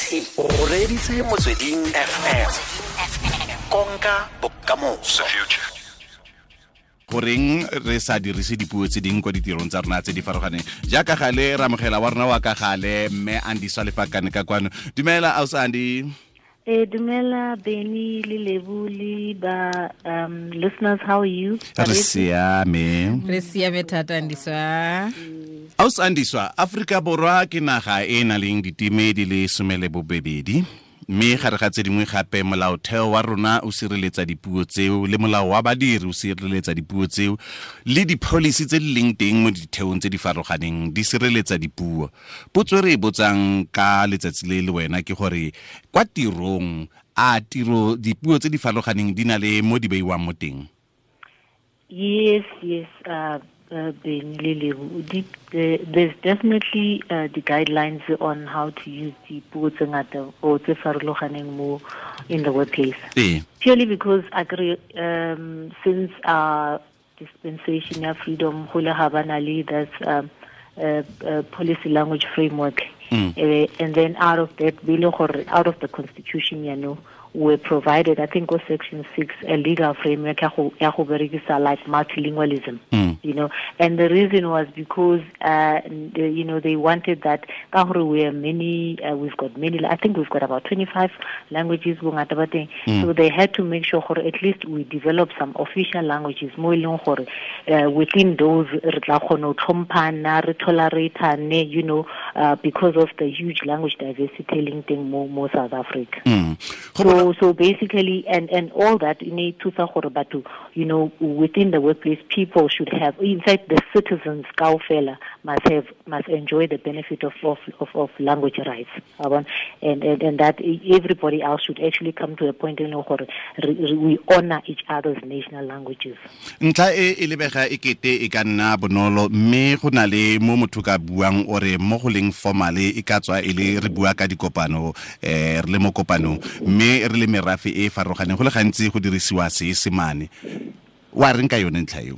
O reditse Motsweding FM. Konka bokamoso. Goreng re sa dirise dipuo tse dingwe kwa ditirong tsa rona tse di farologaneng? Jaaka gale re amogela wa rona wa ka gale, mme Andiswa Lefakane ka kwano. Dumela, ausi Andy. Dumela Benny le Lebu le ba listeners, how are you? Re siame. Re siame thata, Andiswa. Ausi Andiswa, Aforika Borwa ke naga e e nang leng diteme di le 12, mme gare ga tse dingwe gape molaotheo wa rona o sireletsa dipuo tseo, le molao wa badiri o sireletsa dipuo tseo, le di-policy tse di leng teng mo ditheong tse di farologaneng di sireletsa dipuo. Potso e re e botsang ka letsatsi le le wena ke gore kwa tirong, a tiro dipuo tse di farologaneng di na le mo di beiwang mo teng? Yes, yes, Benny le Lebu, there's definitely the guidelines on how to use the puo tse ngata or tse farologaneng mo in the workplace. Purely because I agree, since our dispensation of freedom, go le ga ba na le that's policy language framework. And then out of that, out of the constitution, you know, were provided, I think, was section 6, a legal framework ya go berekisa like multilingualism, you know. And the reason was because, you know, they wanted that, ka gore we are many, we've got many, I think we've got about 25 languages, bongata ba teng. So they had to make sure gore at least we develop some official languages, mo e leng gore, within those, re tla kgona ho tlhomphana, re tolerate-ane, you know, because of the huge language diversity leng teng mo South Africa. So basically, and all that, in a thusa gore batho, you know, within the workplace, people should have, in fact, the citizens kaofela must enjoy the benefit of language rights. And that everybody else should actually come to a point in gore we honor each other's national languages. Ntlha e e lebega e kete e ka nna bonolo, mme go na le mo motho ka buang ore mo go leng formale e ka tswa e le re bua ka dikopano, re le mo kopanong, mme re le merafe e farologaneng, go le gantsi go dirisiwa Seesemane. Wa reng ka yone ntlha eo?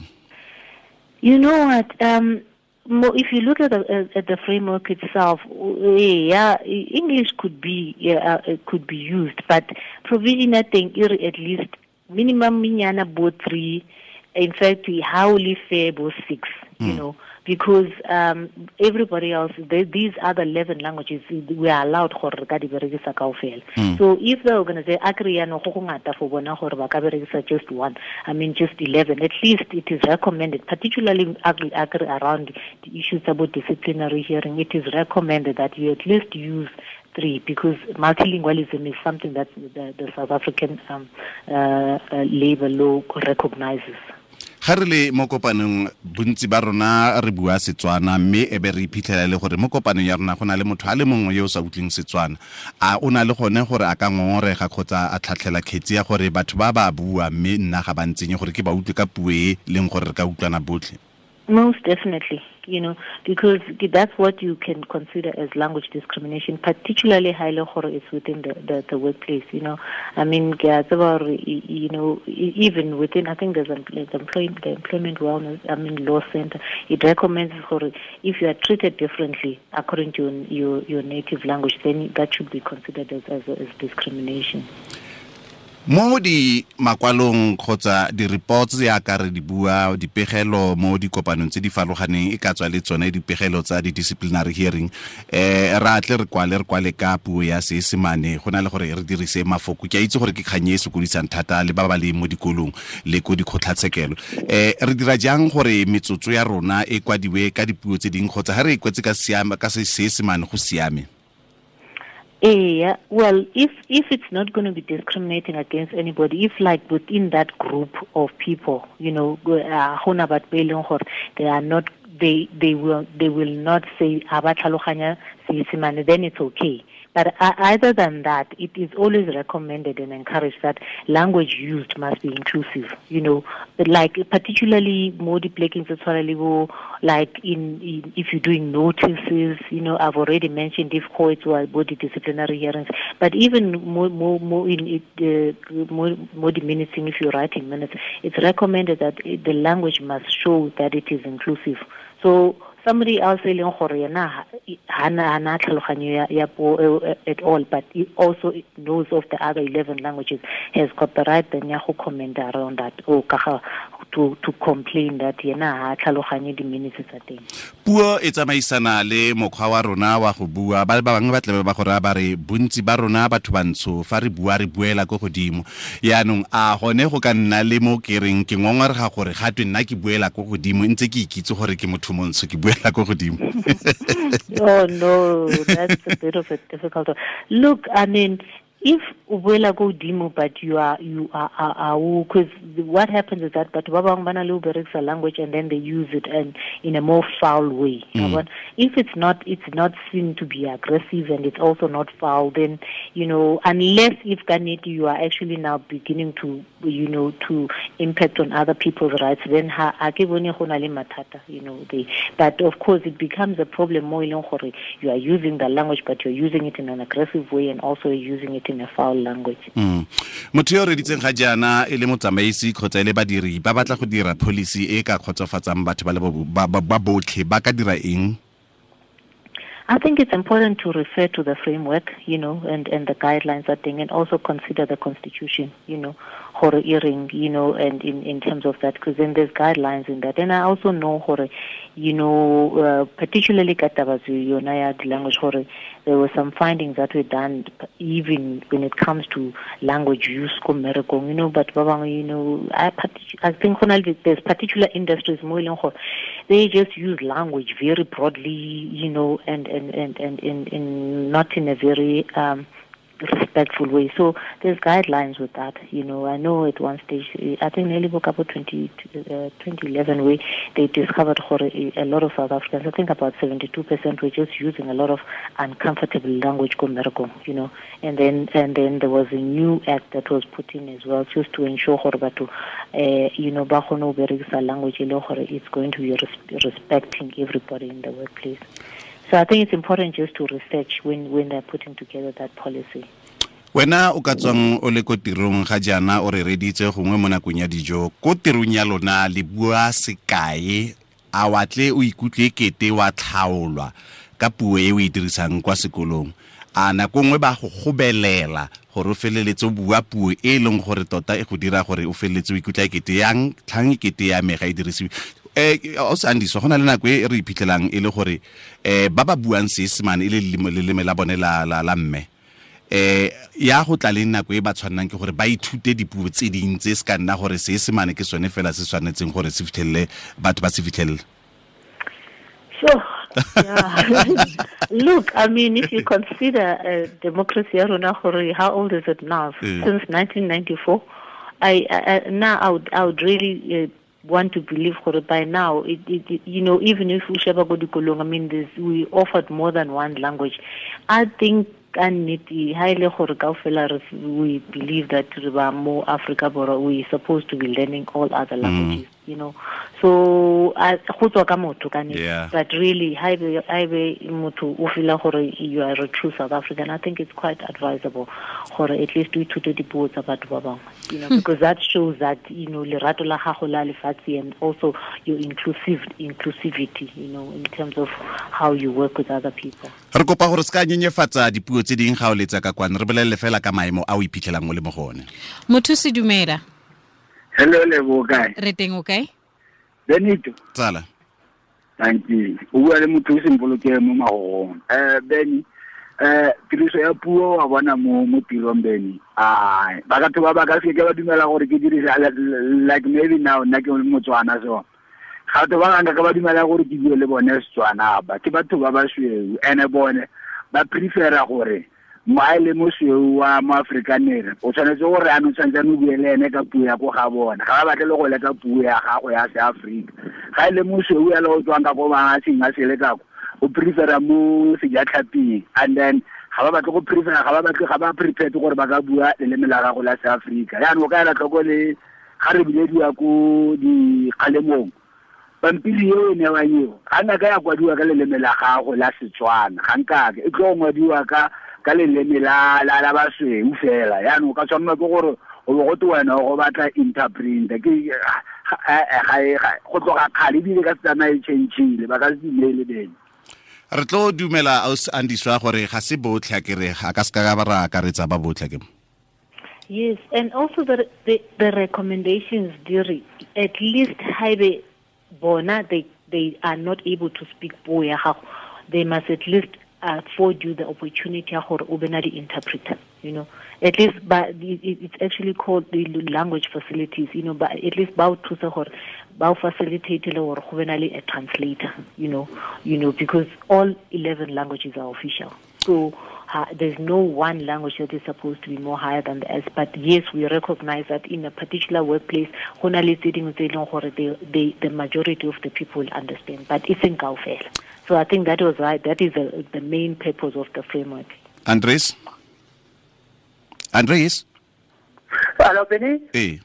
You know what, if you look at the framework itself, yeah, English could be used, but provision I think at least minimum minyana bo 3, in fact, howly fair bo 6, you know, because everybody else, these other 11 languages, we are allowed gore re ka di berekisa kaofela. So if the organization agree no go go ngata for bona gore ba ka berekisa just one, I mean just 11, at least it is recommended, particularly agree around the issues about disciplinary hearing, it is recommended that you at least use 3, because multilingualism is something that the South African labor law recognizes. Ga re le mo kopanong bontsi ba rona re bua Setswana, mme e be re iphitlhela le gore mo kopanong ya rona go na le motho a le mongwe yo o sa utlweng Setswana. A o na le gone gore a ka ngongorega kgotsa a tlhatlhela kgetsi ya gore batho ba ba bua mme nna ga ba ntsenye gore ke ba utlwe ka puo e leng gore re ka utlwana botlhe? Most definitely, you know, because that's what you can consider as language discrimination, particularly highly gore it's within the workplace, you know. I mean, you know, even within, I think there's the Employment Wellness, I mean, Law Center, it recommends gore if you are treated differently according to your native language, then that should be considered as discrimination. Mo di makwalong kgotsa di-reports ya ka re di bua, dipegelo mo dikopanong tse di farologaneng, e ka tswa le tsone dipegelo tsa di-disciplinary hearing, ra tle re kwale ka puo ya Seesemane go na le gore re dirise mafoko. Ke a itse gore ke kgang e e sokodisang thata le ba ba leng mo dikolong le ko dikgotlatshekelo. Re dira jang gore metsotso ya rona e kwadiwe ka dipuo tse dingwe kgotsa ga re e kwetse ka Seesemane go siame? Yeah, well, if it's not going to be discriminating against anybody, if like within that group of people, you know, they are not, they will not say ha ba tlhaloganya Seesemane, then it's okay. But other than that, it is always recommended and encouraged that language used must be inclusive. You know, like particularly more like in if you're doing notices, you know, I've already mentioned if courts were body disciplinary hearings, but even more in it, more diminishing if you're writing minutes, it's recommended that the language must show that it is inclusive. So Somebody else e leng gore yena hana tlhaloganyo ya puo at all, but he also knows of the other 11 languages, has got the right then ya go comment around that, or ka to complain that yena ha tlhaloganye di-minutes tsa teng. Puo e tsamaisana le mokgwa wa rona wa go bua. Ba bangwe ba tlabe ba go raya ba re bontsi ba rona batho bantsho fa re bua re buela ko godimo. Yaanong a gone go ka nna le mo ke reng ke ngongorega gore ga twe nna ke buela ko godimo ntse ke ikitse gore ke motho montsho ke buela ko godimo. Oh no, that's a bit of a difficult one. Look, I mean, if o buela ko godimo, but you are because what happens is that but ba bangwe ba na le ho berekisa language and then they use it and in a more foul way. But if it's not seen to be aggressive and it's also not foul, then, you know, unless if ka nnete you are actually now beginning to, you know, to impact on other people's rights, then ha ke bone go na le mathata, you know. But of course it becomes a problem mo e leng gore you are using the language, but you're using it in an aggressive way and also using it in a foul language. Motho yo reditseng ga jaana e le motsamaisi kgotsa e le badiri ba batla go dira policy e ka kgotsofatsang batho ba le ba botlhe, ba ka dira eng? I think it's important to refer to the framework, you know, and the guidelines, I think, and also consider the constitution, you know, gore earring, you know, and in terms of that, because then there's guidelines in that. And I also know, gore, you know, particularly ka taba yona ya di-language, gore there were some findings that were done even when it comes to language use ko mmerekong, you know, but ba bangwe, you know, I think there's particular industries mo e leng gore they just use language very broadly, you know, and in not in a very respectful way. So there's guidelines with that, you know. I know at one stage, I think nearly about 2011, where they discovered a lot of South Africans, I think about 72% were just using a lot of uncomfortable language, you know. And then there was a new act that was put in as well, just to ensure gore you know, ba kgone ho berekisa language e le gore it's going to be respecting everybody in the workplace. So I think it's important just to research when they're putting together that policy. Wena o ka tswang o le ko tirong ga jaana o re reditse gongwe mo nakong ya dijo, ko tirong ya lona le bua sekae, a wa tle o ikutlwe kete wa tlhaolwa ka puo e o e dirisang kwa sekolong? A nako nngwe ba go gobelela gore o feleletse o bua puo e leng gore tota e go dira gore o feleletse o ikutlwa kete yang tlhang kete ya me ga e dirisiwe? O se Andiswa, go na le nako e re iphitlhelang e le gore ba ba buang Seesemane e le leleme la bone la mme, ya go tla le nako e ba tshwannang ke gore ba ithute dipuo tse ding tse se ka nna gore Seesemane ke sone fela se tshwanetseng gore se fitlhelele batho ba se fitlhelele. Sure. Yeah. Look, I mean, if you consider democracy, how old is it now? Since 1994, I would really want to believe by now, it, you know, even if we sheba go dikolong, I mean, we offered more than one language. I think we believe that more Africa, we supposed to be learning all other languages, you know. So yeah. But really, you are a true South African. I think it's quite advisable gore at least we ithute dipuo tsa batho ba bangwe, you know, because that shows that, you know, lerato la gago la lefatshe and also your inclusivity, you know, in terms of how you work with other people. Re kopa gore se ka nyenyefatsa dipuo tse ding ga o letsa ka kwana, re bolelle fela ka maemo a o iphitlhelang o le mo go one. Motho se dumela. Hello, Lebo, kae? Re teng, o kae? Benito. Tsala. Thank you. O bua le motho o sempoloke mo magogong. Benny, tiriso ya puo wa bona mo tirong, Benny. Ai, ba ka ba ka se ke ba dumela gore ke dirise like maybe now nna ke Motswana, so ga batho ba bangwe ka ba dumela gore ke bue le bone Setswana ba ke batho ba basweu, ene bone ba prefera gore mo le mosweu wa mo Afrikaner o tshwanetse gore a no tshwanetse o bue le ene ka puo ya ko ga bona, ga ba batle le go leka puo ya gago ya Seafrika. Ga ile mosweu ya le o tswang ka ko mahatsheng a sele kako, o prefera mo sejatlhaping, and then ga ba batle go prefera, ga ba batle, ga ba prepared gore ba ka bua leleme la gago la Seafrika. Yaanong o ka ela tlhoko le ga re bilediwa ko dikgalemong, pampiri eo e newang eo ga nna ka ya kwadiwa ka leleme la gago la Setswana, ga nkake e tlo ngwadiwa ka leleme la basweu fela. Yaanong o ka tshwanela ke gore o bo gote wena go batla interprinter, ke ga go tloga kgale ebile ka se tsamaye change-ile ba ka se dumele Bene. Re tlo dumela Andiswa gore ga se botlhe a kere a ka se ka ba ra akaretsa ba botlhe ke. Yes, and also the recommendations diri at least haebe bona they are not able to speak puo ya gago, they must at least afford you the opportunity ya gore o be na le interpreter, you know, at least but it's actually called the language facilities, you know, but at least ba o thusa gore ba o facilitate le gore go be na le a translator, you know, because all 11 languages are official. So there's no one language that is supposed to be more higher than the else. But yes, we recognize that in a particular workplace, go na le tse dingwe tse e leng gore the majority of the people understand, but it's in kaofela. So I think that was right. That is the main purpose of the framework. Andres? Hello, Benny? Hey.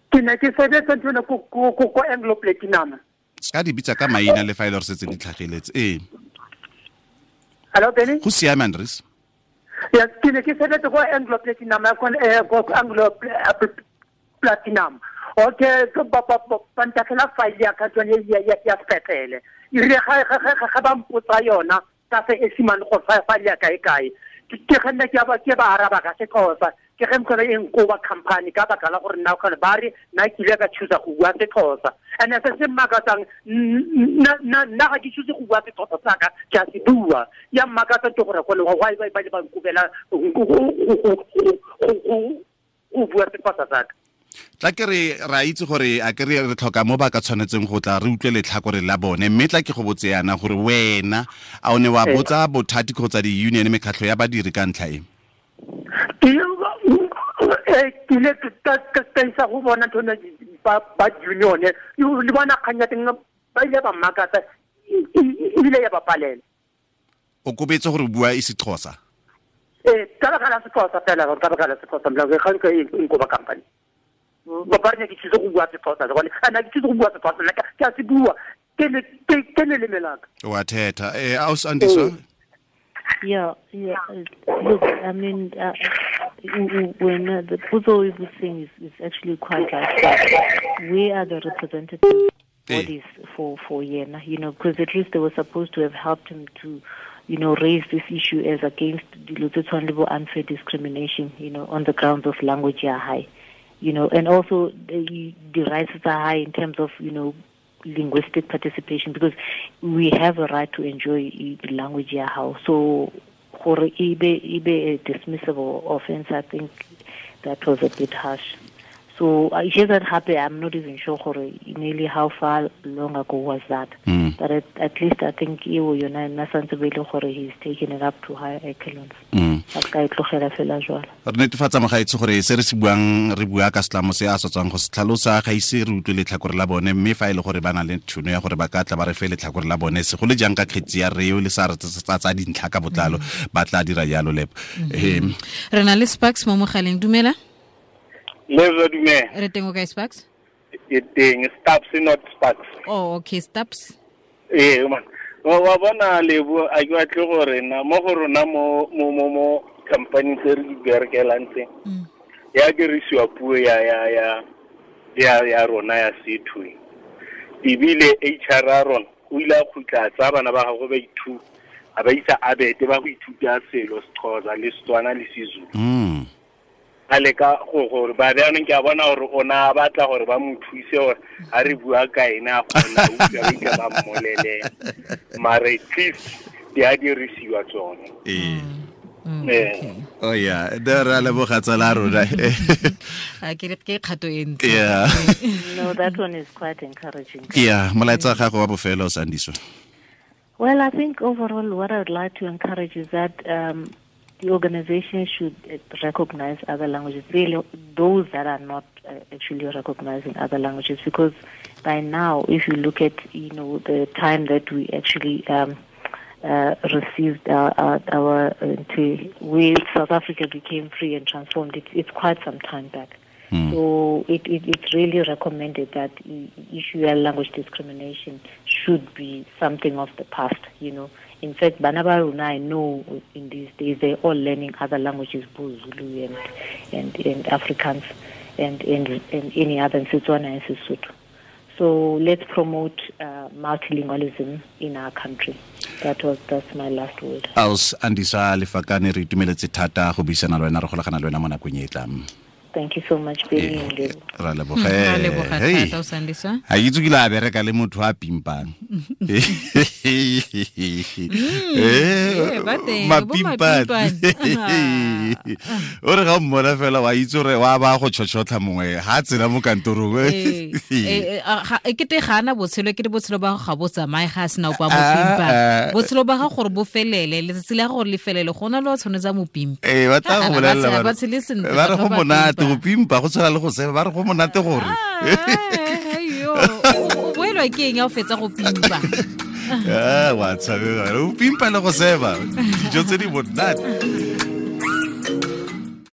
Ke ne ke sebetsa ntho ena ko Anglo Platinum. Ska di bitsa ka maina le fa ile re setse di tlhageletse. Ee. Hello, Benny? Go siame, Andres? Yes, ke ne ke sebetsa ko Anglo Platinum, ko Anglo Platinum. Okay, ba ntatlhela file ya ka tsone ya sepetlele. E rile ga ba mpotsa yona ka se esimane go file ya kae kae. Ke ga nna ke ba araba ka Sexhosa. Ke ge mkhona e nkoba company ka baka la gore nna khona ba re nna ke ile ka choose go bua Sexhosa. And se se mmakatsang nna ga ke choose go bua Sexhosa sa ka ke a se bua. Ya mmakatsa ke gore go why ba ba nkobela go bua Sexhosa sa ka. Tla ke re ra itse gore a ke re tlhoka mo ba ka tshwanetseng go tla re utlwe letlhakore la bone, mme tla ke go botse yana gore wena a o ne wa botsa bothati kgotsa di-union mekgatlho ya badiri ka ntlha e? Ke ile ka isa go bona ntho ba union le bona kgang ya teng ba ile ba mmakatsa ebile ya ba palela. O kobetse gore o bua isiXhosa? Ee, ka baka la Sexhosa fela, ka baka la Sexhosa ga nka e nkoba company. Ba re ke tsitse go bua Sexhosa gone ana ke tsitse go bua Sexhosa nna ke a se bua ke leleme la ka. Wa thetha aus Andiswa? Yeah. Look, I mean, when the puzzle is thing is actually quite like that. We are the representative bodies for Yena, you know, because at least they were supposed to have helped him to, you know, raise this issue as against the unfair discrimination, you know, on the grounds of language ya high, you know, and also the rights are high in terms of, you know, linguistic participation, because we have a right to enjoy the language ya how. So gore e be a dismissible offense, I think that was a bit harsh. So I hear that happen. I'm not even sure gore nearly how far long ago was that. But at least I think eo yona nna santse be le gore he's taken it up to higher echelons. A ka e tlogela fela jwalo. Re netefatsa mogaetsi gore se re se buang re bua ka setlamo se a sa tswang go se tlhalosa, ga ise re utlwe letlhakore la bone, mme fa e le gore ba na le tšhono ya gore ba ka tla ba re fe letlhakore la bone, segolo jang ka kgetsi ya reo le sa re tsa dintlha ka botlalo, ba tla dira jalo lepo. Re na le Sparks mo mogaleng, dumela. Lezo dumela. Re teng o kae Sparks? Ke teng, Staps not Sparks. Oh, okay, Staps. Ee, man. Wa bona Lebo, a ke batle gore na mo go rona mo mo mo mo company tse re di berekelang tse. Ya dirisiwa puo ya ya ya ya ya rona ya setho. Ebile HR ya rona o ile a khutla tsa bana ba gagwe ba ithuta, a ba isa abete ba go ithuta selo Sexhosa le Setswana le Sezulu. A leka go gore ba bjanong ke a bona gore o na batla gore ba mo thuse gore a re bua ka ena a kgona utlwa ba ike ba mmolele, mare at least di a dirisiwa tsone. Oh yeah, there are leboga tsala rona. A ke kgato e ntle. Yeah. No, that one is quite encouraging. Yeah, molaetsa gago wa bofelo Sandiswa. Well, I think overall what I would like to encourage is that the organization should recognize other languages, really those that are not actually recognizing other languages, because by now, if you look at, you know, the time that we actually received our where South Africa became free and transformed, it's quite some time back. So it's really recommended that issue of language discrimination should be something of the past, you know. In fact, bana ba rona, I know in these days they're all learning other languages, both Zulu and Afrikaans. and and, and any other in Setswana and Sesotho. So let's promote multilingualism in our country. That was that's my last word. Aus Andisa Lefakane re itumeletse thata go buisana le wena re golagana le wena mo nakong e e tlang. Thank you so much, Benny and Lebo. Ra Ra leboga. leboga Hey. thata o Sandiswa. Ha ke itse ke ile a bereka le motho a pimpang. Eh, ba teng, bo Mapimpane. mapimpane. O re ga o mmona fela wa itse gore wa ba go tšhotšhotlha mongwe ha a tsena mo kantorong. Ee, ee, e kete ga ana botshelo e kete botshelo ba gago ga bo tsamaye ga a sena opa mo Ah, pimpa ah. botshelo ba gago gore bo felele letsatsi la gore le felele gona le wa tshwanetse a mo pimpa Ee, ba tla go Ah, bolelela ba ba re- tshele sentle, ba re batho go ba monate pimpa. go pimpa go tshwana le go seba ba re go monate gore Ah, aiyo. O boelwa ke eng ya o fetsa go pimpa Ah, wa tshabega o pimpa le go seba dijo tse di monate.